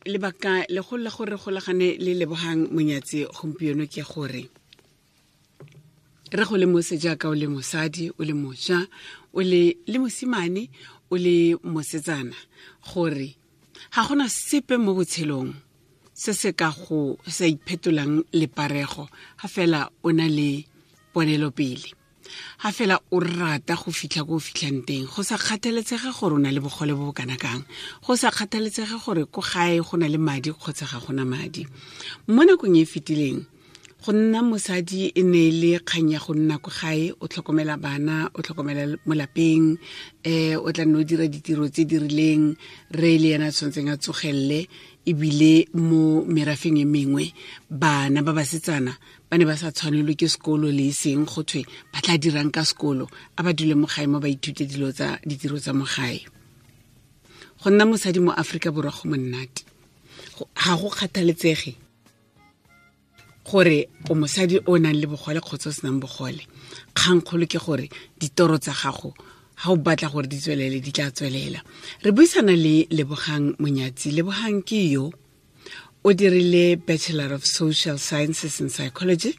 Lebaka le go la gore golagane le Lebogang Monyatsi gompieno ke gore re go le mose jaaka o le mosadi, o le moja, o le le mosimane, o le mosetsana, gore ga gona sepe mo botshelong se se ka go sa iphetolang leparego ga fela o na le ponelopele, ga fela o rata go fitlha ko o fitlhang teng, go sa kgathaletsege gore o na le bogole bo bo kana kang, go sa kgathaletsege gore ko gae go na le madi kgotsa ga gona madi. Mo nakong e fetileng, go nna mosadi e ne e le kgang ya go nna ko gae, o tlhokomela bana, o tlhokomela mo lapeng, o tla nne o dira ditiro tse di rileng, re le yena a tshwanetseng a tsogelele. Ebile mo merafeng e mengwe, bana ba basetsana ba ne ba sa tshwanelwe ke sekolo le e seng, go thwe ba tla dirang ka sekolo, a ba dule mo gae mo ba ithute dilo tsa ditiro tsa mo gae. Go nna mosadi mo Aforika Borwa go monnate, ga go kgathaletsege gore o mosadi o nang le bogole kgotsa o senang bogole. Kgangkgolo ke gore ditoro tsa gago ga o batla gore di tswelele, di tla tswelela. Re buisana le Lebogang Monyatsi. Lebogang ke yo o dirile Bachelor of Social Sciences and Psychology.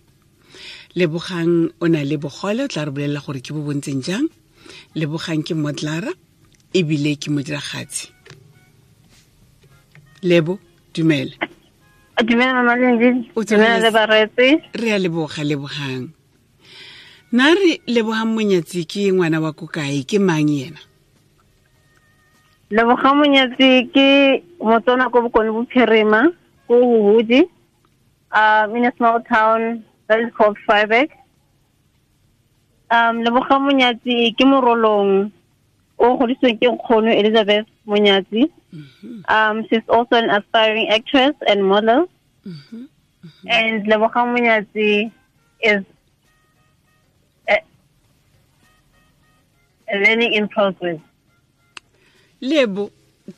Lebogang o na le bogole, o tla re bolelela gore ke bo bontseng jang. Lebogang ke modlara ebile ke modiragatsi. Lebo, dumela. Dumela, Mama Lendi. Dumela le bareetsi. Re a leboga, Lebogang. Na re Lebogang Monyatsi ke ngwana wa ko kae, ke mang yena? Lebogang Monyatsi ke Motswana ko Bokone Bophirima, ko Huhudi, in a small town that is called Vryburg. Lebogang Monyatsi ke Morolong o godisitsweng ke nkgono Elizabeth Monyatsi. She's also an aspiring actress and model. And Lebogang Monyatsi is a learning in progress. Lebo,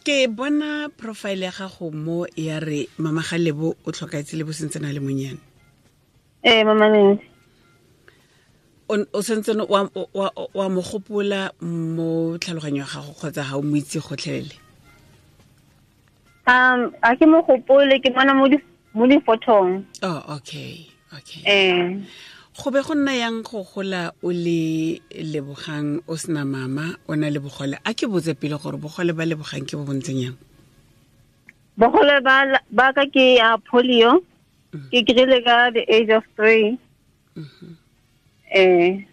ke bona profile ya gago mo ya re mama ga Lebo o tlhokaetse Lebo sentse na le monyane. Ee, Mama Lindi. O sentse wa mo gopola mo tlhaloganyo ya gago kgotsa ga o mo itse gotlhelele? A ke mo gopole, ke bona mo difothong. Oh, okay. Ee. Go be go nna yang go gola o le Lebogang o sena mama, o na le bogole? A ke botse pele gore bogole ba Lebogang ke bo bontseng yang? Bogole ba ka ke ya polio. Ke kry-ile ka the age of 3. Ee.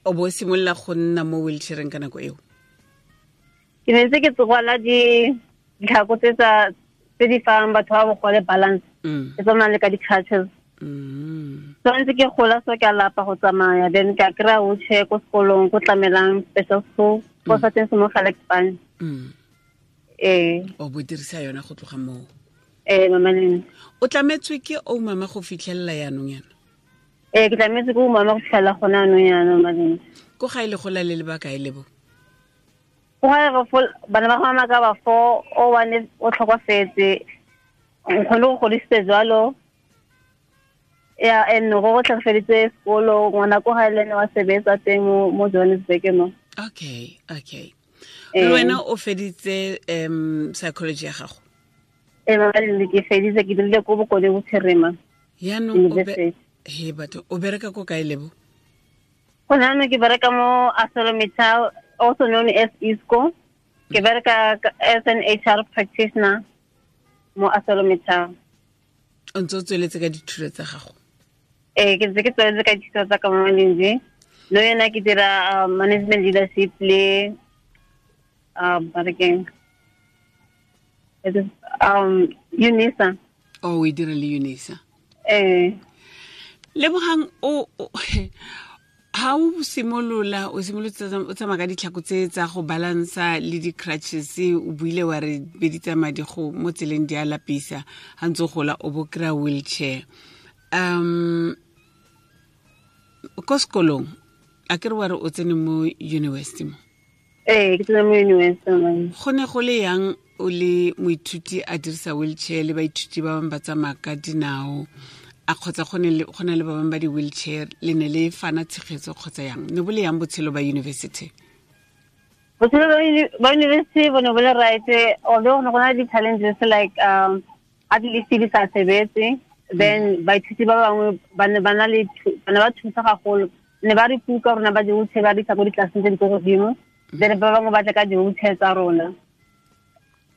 O bo simolola go nna mo wheelchaireng ka nako eo? Ke ne ntse ke tsogwala ditlhako tse tsa tse di fang batho ba bogole balance. Ke tsamaya le ka di-crutches. So ntse ke gola, so ke a lapa go tsamaya, then ka kry-a wheelchair ko sekolong, ko Tlamelang Special School, ko sa teng se mo Gelukspan. Ee. O bo dirisa yona go tloga moo? Ee, Mama Lindi. O tlametswe ke o mama go fitlhelela yaanong yana? Ee, ke tlametse ke o mama go fitlhelela gone anong yana, Mama Lindi. Ko ga e le gola le lebaka e lebo? Go ga re fo bana ba mama ka ba fo o one o tlhokofetse, nkgone go godisitse jalo ya, and go go tlhokofeditse sekolo, ngwana ko ga le ene wa sebetsa teng mo Johannesburg mo. Okay. Le wena o feditse psychology ya gago? Ee, Mama Lindi, ke feditse, ke dirile ko Bokone Bophirima Yaanong University. He batho, o bereka ko kae, Lebo? Go nano ke bereka mo ArcelorMittal, also known as Isco. Ke bereka as an HR practitioner mo ArcelorMittal. O ntse o tsweletse ka dithuto tsa gago? Ee, ke ntse ke tsweletse ka dithuto tsa ka, Mama Lindi. No yena ke dira management leadership le ba re keng? It is UNISA. Oh, o e dira le UNISA? Ee. Lebogang, o ha o simolola, o simolotse o tsamaya ka ditlhako tse tsa go balansa le di-crutches, o buile wa re be di tsamaya di go mo tseleng di a lapisa, ha ntse o gola o bo kry-a wheelchair. Ko sekolong, a ke re wa re o tsene mo university mo? Ee, ke tsene mo university, mama. Go ne go le yang o le moithuti a dirisa wheelchair le baithuti ba bangwe ba tsamaya ka dinao, a kgotsa go na le ba bangwe ba di-wheelchair, le ne le fana tshegetso kgotsa yang? Ne bo le yang botshelo ba university? Botshelo ba university bo ne bo le right, although go ne go na le di-challenges like a di-list di sa sebetse, then baithuti ba bangwe ba ne ba na le ba ne ba thusa gagolo, ne ba re kuka rona ba di-wheelchair ba re isa ko ditlelaseng tse di ko godimo, then ba bangwe ba tla ka di-wheelchair tsa rona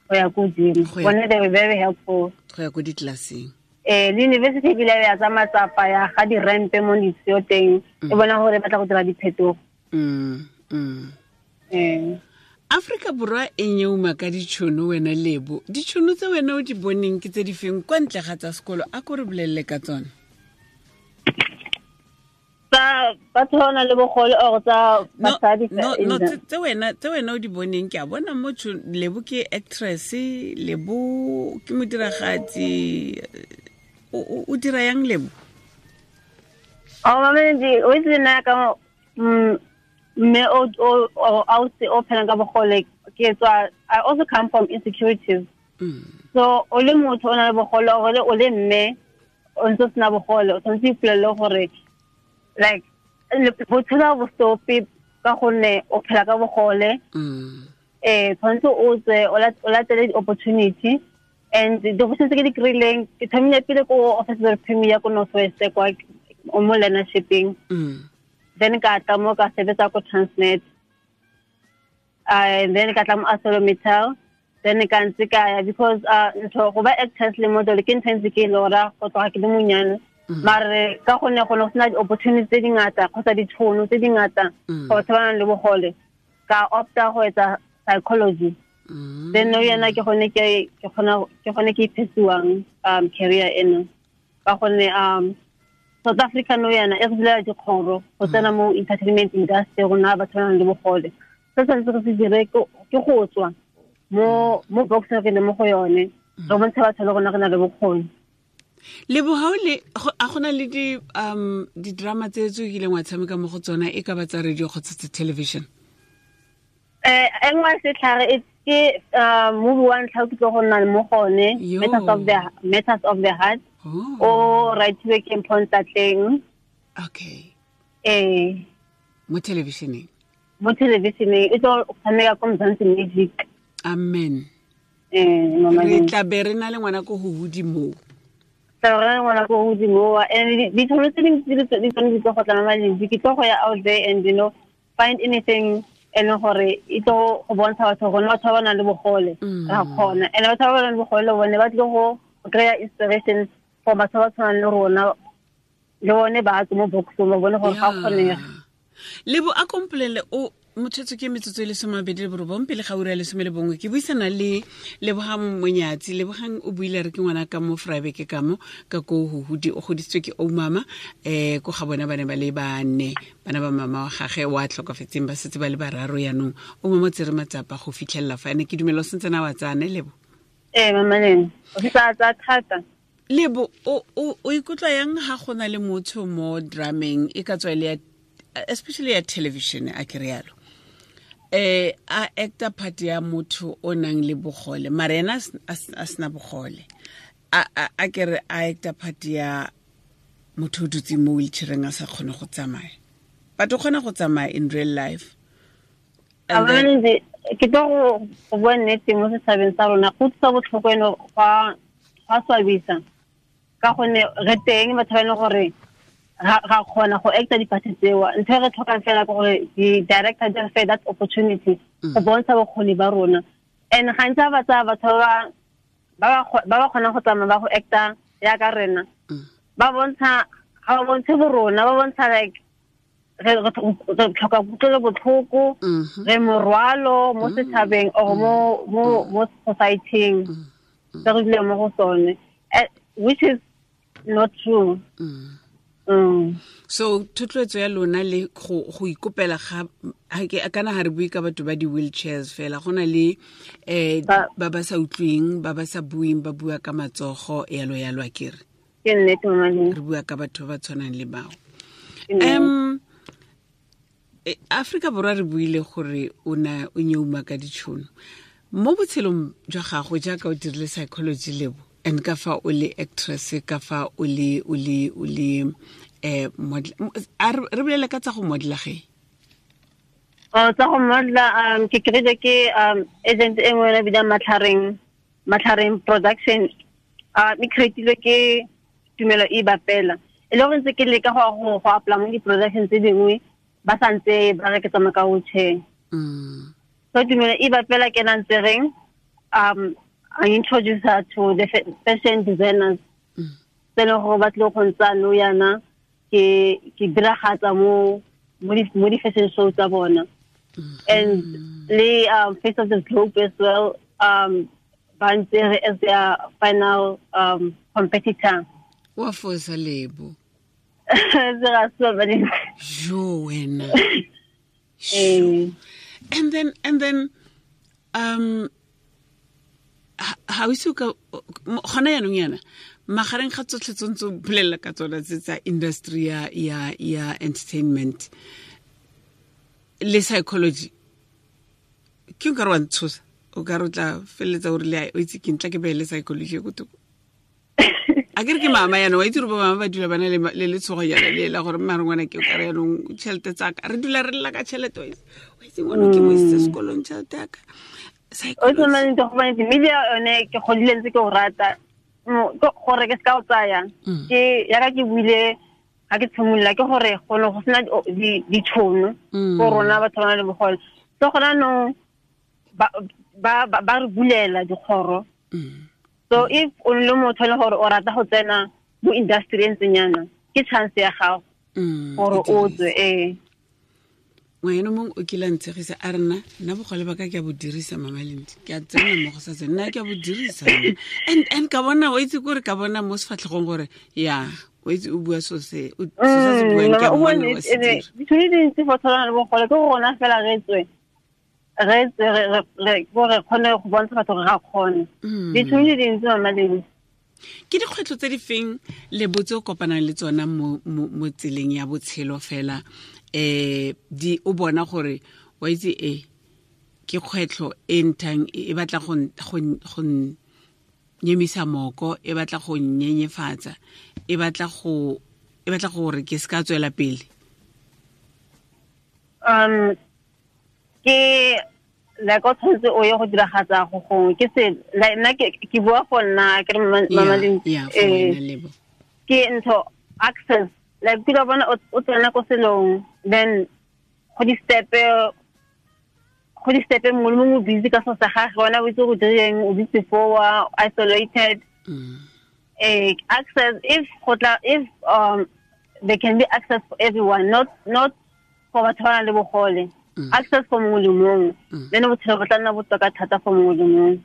go ya ko godimo. Bone they were very helpful go ya ko ditlelaseng. Le university ebile ya tsa matsapa ya ga di-rampe mo ditsheo teng, e bona gore ba tla go dira diphetogo. Afrika Borwa e nyeuma ka ditšhono. Wena Lebo, ditšhono tse wena o di boneng ke tse di feng kwa ntle ga tsa sekolo? A ko re bolelele ka tsone. Tsa batho ba nang le bogole or tsa basadi? No, tse wena o di boneng. Ke a bona mo Lebo ke actress, Lebo ke modiragatsi. O dira yang, Lebo? Oh, mama, o itse nna ka mme o ausi o phelang ka bogole, ke tswa, I also come from insecurities. So o le motho o na le bogole or o le mme o ntse o sena bogole, o tshwanetse ipolelele gore like botshelo bo stope ka gonne o phela ka bogole. Tshwanetse o tswe o latele di-opportunity, and di-opportunity tse ke di kry-ileng, ke thomile pele ko Office of the Premier ko North West kwa mo learnershipeng, then ka tla mo ka sebetsa ko Transnet, and then ka tla mo ArcelorMittal, then ka ntse ka ya because ntho go ba actress le model ke ntho e ntse ke e lora go tloga ke le monyane, mare ka gonne go ne go sena di-opportunity tse dingata kgotsa ditšhono tse dingata for batho ba nang le bogole, ka opta go etsa psychology. Then no yana ke gone ke kgona ke gone ke iphesuwang career eno, ka gonne South Africa no yana e re bulela dikgoro go tsena mo entertainment industry. Rona batho ba nang le bogole, se tshwanetse re se dire ke go tswa mo box re le mo go yone, re bontshe batho le rona re na le bokgoni. Lebo, ga o le a gona le di di-drama tse tse o kileng wa tshameka mo go tsona, e ka ba tsa radio kgotsa tsa television? E nngwe setlhare e ke movie wa ntlha o ke tlo go nna mo gone, Matters of the Heart, o writiwe ke Mpho Ntlatleng. Ee. Mo televisioneng? Mo televisioneng, e tlo tshameka ko Mzansi Magic. Amen. Eh, mama. Re tla be re na le ngwana ko go godimo. Tla re ngwana ko godimo, and ditšhono tse dingwe tse di tsone di tlo go tla, mama Lindy. Ke tlo go ya out there and find anything e leng gore e tlo go bontsha batho gore batho ba ba nang le bogole ra kgona, and batho ba ba nang le bogole bone ba tlile go kry-a inspiration for batho ba tshwanang le rona, le bone ba tswe mo boxong, ba bone gore ga kgonega. Lebo, a kompolele o motshwetso ke metsotso e le 29 pele ga ura ya 11. Ke buisana le Lebogang Monyatsi. Lebogang o buile re ke ngwana ka mo Vryburg, ka mo ka ko Huhudi. O godisitswe ke oumama ko ga bona ba ne ba le bane, bana ba mama wa gage wa tlhokafetseng, ba setse ba le bararo. Yaanong o mama o tsere matsapa go fitlhelela fa ene. Ke dumela o sentse na wa tsane, Lebo? Ee, mamaleng, o fetsa tsa thata. Lebo, o ikutlwa yang ha go na le motho mo drameng, e ka tswa e le ya, especially ya television, a ke rialo, a actor part ya motho o nang le bogole, mara ena a sena bogole, a ke re a actor part ya motho o dutseng mo wheelchaireng, a sa kgone go tsamaya, but o kgona go tsamaya in real life? And then- Amanzi, ke tlo go bua nnete, mo setšhabeng sa rona go utlwisa botlhoko eno, gwa swabisa, ka gonne re teng batho ba e leng gore ga kgona go acta diphathi tseo. Ntho e re tlhokang fela ke gore di-director di re fe that opportunity go bontsha bokgoni ba rona. And gantsi ga ba tsaya batho ba ba kgonang go tsamaya ba go acta yaka rena, ba bontsha, ga ba bontshe borona, ba bontsha like re tlhoka kutlwelo botlhoko, re morwalo mo setšhabeng or mo society-ing se re duleng mo go sone, which is not true. So thotloetso ya lona le go ikopela ga ke kana ga re bue ka batho ba di-wheelchairs fela, go na le ba ba sa utlweng, ba ba sa bueng, ba bua ka matsogo, yalo yalo, a kere? Ke nnete, mama. Re bua ka batho ba ba tshwanang le bao. Ke nnete. Afrika Borwa, re buile gore o na o nyeuma ka ditšhono mo botshelong jwa gago, jaaka o dirile psychology, Lebo, and ka fa o le actress, ka fa o le model. A re bolele ka tsa go modela ge. Tsa go modela ke kry-ile ke agent e nngwe e bidang Matlhareng Production, e creatilwe ke Tumelo e Bapela. E le gore ntse ke leka go apply mo di-production tse dingwe, ba sa ntse ba re ke tsamaya ka wheelchair. So Tumelo e Bapela ke na ntse reng, I introduce her to the fashion designers. Tse leng gore ba tlile go ntsa nou yana ke diragatsa mo di-fashion show tsa bona. And le Face of the Globe as well, ba ntse re as their final competitor. Wa fosa Lebo. Jo wena. And then ha o se ka gona yanong yana magareng ga tsotlhe tse ntse bolela ka tsona tse tsa industry ya entertainment le psychology, ke nka re wa ntshosa, o ka re o tla feleletsa o rile o itse ke ntla ke beele psychology ko thoko. A ke re ke mama yana, wa itse gore bo mama ba dula ba na le letshogo yana le la gore mma re ngwana ke o ka re yanong tšhelete tsaka re dula re lla ka tšhelete, wa itse ngwana ke mo isitse sekolong tšhelete yaka. O tshwanetse go bane media yone ke godile ntse ke o rata gore ke se ka o tsaya, ke yaka ke buile ga ke tshimolola ke gore go ne go sena ditšhono go rona batho ba na le bogole. So gona no ba re bulela dikgoro. So if o le motho le gore o rata go tsena mo industry e ntseng yana, ke chance ya gago gore o tswe. Ngwana mongwe o kile a ntshegisa a re nna bogole ba ka ke a bo dirisa Mama Lindi, ke a tsena mo go sa tsena, nna ke a bo dirisa. And ka bona o itse kore ka bona mo sefatlhegong gore ya o itse o bua so se o se buang ke a mmona wa se dira. Ditšhono di dintsi for tshwana le bogole ke gore rona fela re tswe re kgone go bontsha batho gore ga kgone. Ditšhono di dintsi Mama Lindi. Ke dikgwetlho tse di feng le botse o kopanang le tsona mo tseleng ya botshelo fela, di o bona gore wa itse ke kgwetlho e nthang e batla go nyemisa moko, e batla go nyenyefatsa, e batla gore ke se ka tswela pele? Ke like o tshwanetse o ye go diragatsa go gongwe ke se nna ke bua for nna ke re Mama Lindi, ke ntho access like ke bona o tsena ko selong, then go di step mongwe le mongwe busy ka so sa gagwe, wena o itse go direng, o busy for isolated. Access if if there can be access for everyone, not for batho ba nang le bogole. Access for mongwe le mongwe, then botshelo bo tla nna botoka thata for mongwe le mongwe.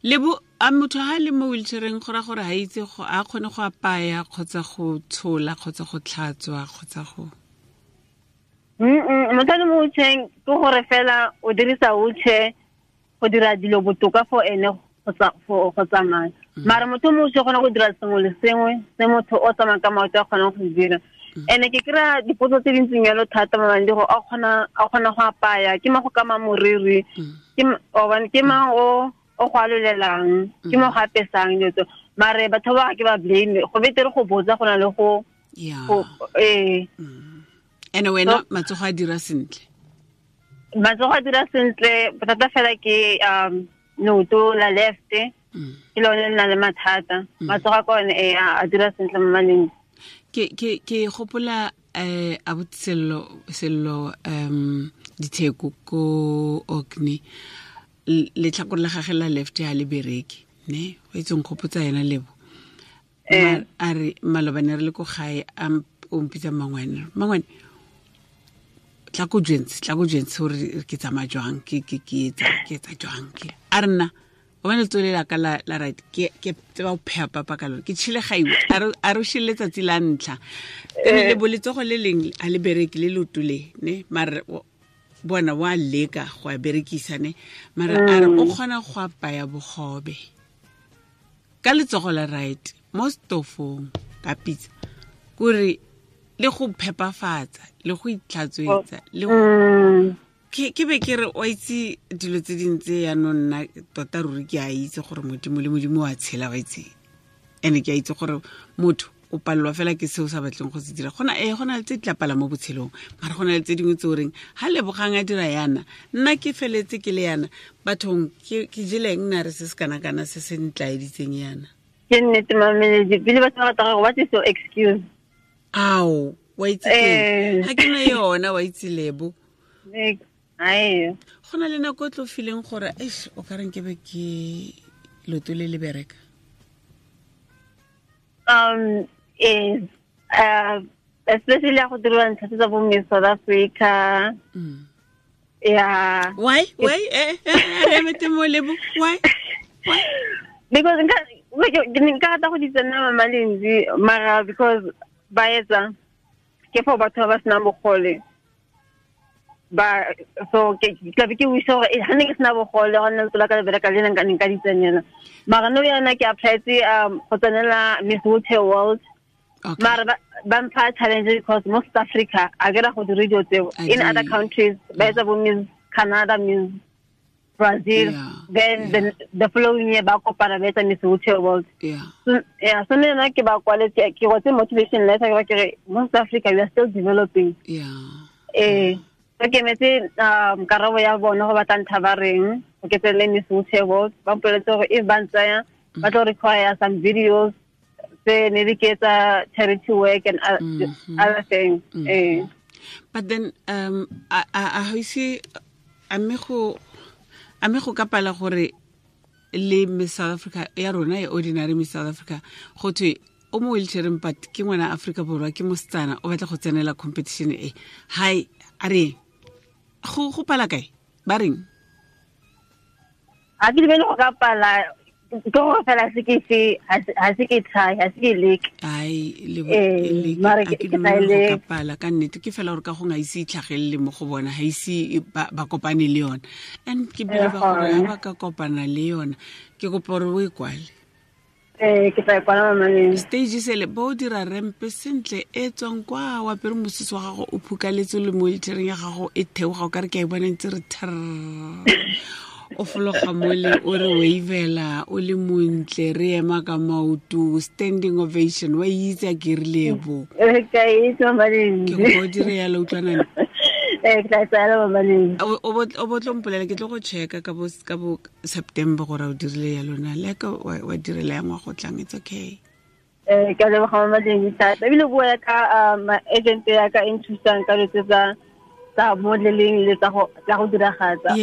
Lebo a motho ha le mo wheelchaireng go ra gore ha itse go a kgone go apaya kgotsa go tshola kgotsa go tlhatswa kgotsa go Motho le mo wheelchaireng ke gore fela o dirisa wheelchair go dira dilo botoka for ene go tsamaya. Mara motho mo wheelchair kgona go dira sengwe le sengwe se motho o tsamayang ka maoto a kgonang go dira. Ene ke kry-a dipotso tse dintseng yalo thata Mama gore a kgona go apaya, ke mang go kama moriri, ke mang o go alolelang, ke mo go apesang dilo tseo. Mare batho ba ke ba blame, go betere go botsa go na le go Ene wena matsogo a dira sentle? Matsogo a dira sentle, bothata fela ke leoto la left ke lone le na le mathata. Matsogo a ka one a dira sentle Mama Lindi. Ke gopola abuti Sello Ditheko ko Orkney, letlhakore la gagwe la left ha le bereke ne o itse nkgopotsa yena Lebo. A re malobane re le ko gae a o mpitsa mangwane tla ko jwentse gore ke tsamaya jwang, ke etsa jwang ke a re nna o bane letsogo la ka la right ke tseba go pheha papa ka lone, ke tšhile gaiwe a re o šile letsatsi la ntlha. Ene le bo letsogo le leng a le bereke le leoto le ne mare bona wa leka go a berekisa ne mara a re o kgona go apaya bogobe ka letsogo la right mo stofong ka pitsa, kore le go phepafatsa le go itlhatswetsa le ke be ke re o itse dilo tse dintse yanong nna tota ruri ke a itse gore Modimo le Modimo wa tshela wa itse, ene ke a itse gore motho O palelwa fela ke seo sa batleng go se dira. Gona ee, go na le tse di tla pala mo botshelong, mara go na le tse dingwe tse o reng ga Lebogang a dira yana, nna ke feletse ke le yana. Bathong, ke jeleng nna re se se kana-kana se se ntlaeditseng yana. Ke nnete, mameledi, pele batho ba rata gore, what is your excuse? Ao, wa itse ga ke na yona, wa itse, Lebo. Go na le nako e tlo fileng gore eish, o ka reng ke be ke loto le le bereka? Especially ya go diriwa ntlha tsa bo Miss South Africa. Yeah. Why? Why? Re mete mo, Lebo. Why? Why? Because nka rata go di tsena, Mama Lenzi, mara because ba etsa ke for batho ba ba senang bogole ba. So ke tlabe ke wish gore ga ne ke sena bogole, go nna letsola ka le bereka le nka nka di tsenela. Mara no yana ke applyetse go tsenela Miss Wheelchair World. Mara ba mpha challenge because mo South Africa a ke ra go dira dilo tseo. In other countries ba etsa bo Miss Canada, Miss Brazil, then the following year ba kopana ba etsa Miss Wheelchair World. So, yeah, so nna ke ba kwaletse, ke kwetse motivation letter, ke ba ke re mo South Africa we are still developing. So ke metse karabo ya bona go batla ntha ba reng go ke tsene Miss Wheelchair World. Ba mpoleletse gore if ba ntsaya, ba tlo require some videos tse maybe ke etsa charity work and other things. But then a ga ise a mme go ka pala gore le Miss South Africa ya rona e ordinary Miss South Africa, go thwe o mo wheelchaireng, but ke ngwana Aforika Borwa, ke mosetsana, o batla go tsenela competition e, hai, a re go pala kae, ba reng? Ga ke dumele go ka pala, ke gore fela se ke se ga se ke try, ga se ke leke. Ai, mare ke tla go ka pala ka nnete, ke fela gore ka go ga ise itlhagelele mo go bona, ga ise ba kopane le yona. And ke believe gore ga ba ka kopana le yona, ke kopa gore o e kwale. Ee, ke tla e kwala, mamaneng. Stage sele ba o dira ramp sentle e tswang kwa, o apere mosese wa gago, o phukaletse le mo wheelchaireng ya gago, e theoga, o ka re ke a e bona ntse re thr, o fologa mole, o re wavela, o le montle, re ema ka maoto, standing ovation. Wa itse a ke re, Lebo? Ka itse, mamaneng. Ke kopa o dire yalo, utlwanane? Ee, ke tla e tsaya, mamaneng. O bo tlo mpolela, ke tlo go checka ka bo September gore o dirile ya lona le ka wa direla ya ngwago tlang. It's okay. Ee, ke a leboga, mamaneng, thata. Ebile bua ka agent ya ka e nthusang ka dilo tse tsa modeling le tsa go diragatsa.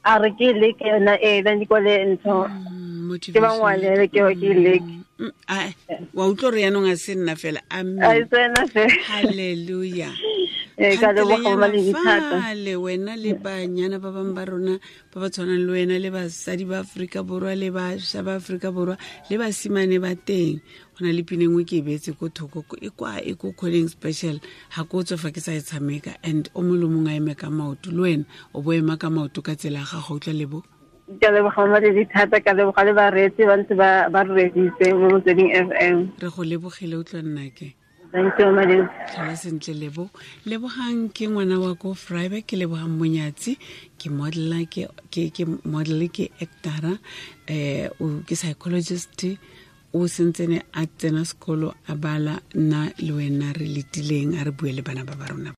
A re ke leke yona ee, then di kwale ntho ke ba ngwalele ke ke leke. Wa utlwa gore yaanong a se nna fela. Amen. Halleluja. Ee, ka leboga, mamaneng, thata. Fale wena le banyana ba bangwe ba rona ba ba tshwanang le wena, le basadi ba Aforika Borwa, le bašwa ba Aforika Borwa, le basimane ba teng, go na le pina engwe ke e beetse ko thoko e kwa e ko calling special, ga ko tswa fa ke sa e tshameka. And o mongwe le mongwe a eme ka maoto, le wena o bo ema ka maoto ka tsela ya gago, utlwa, Lebo? Ke leboga, mamaledi, thata. Ka leboga le bareetsi ba ntse ba re reeditse mo Motsweding FM. Re go lebogile, utlwa nnake. Thank you, mamaledi. Tlhola sentle, Lebo. Lebogang ke ngwana wa ko Vryburg, ke Lebogang Monyatsi, ke modela, ke model, ke actora, ke psychologist, o sentsene a tsena sekolo, a bala. Nna le wena re letileng, a re bue le bana ba ba rona.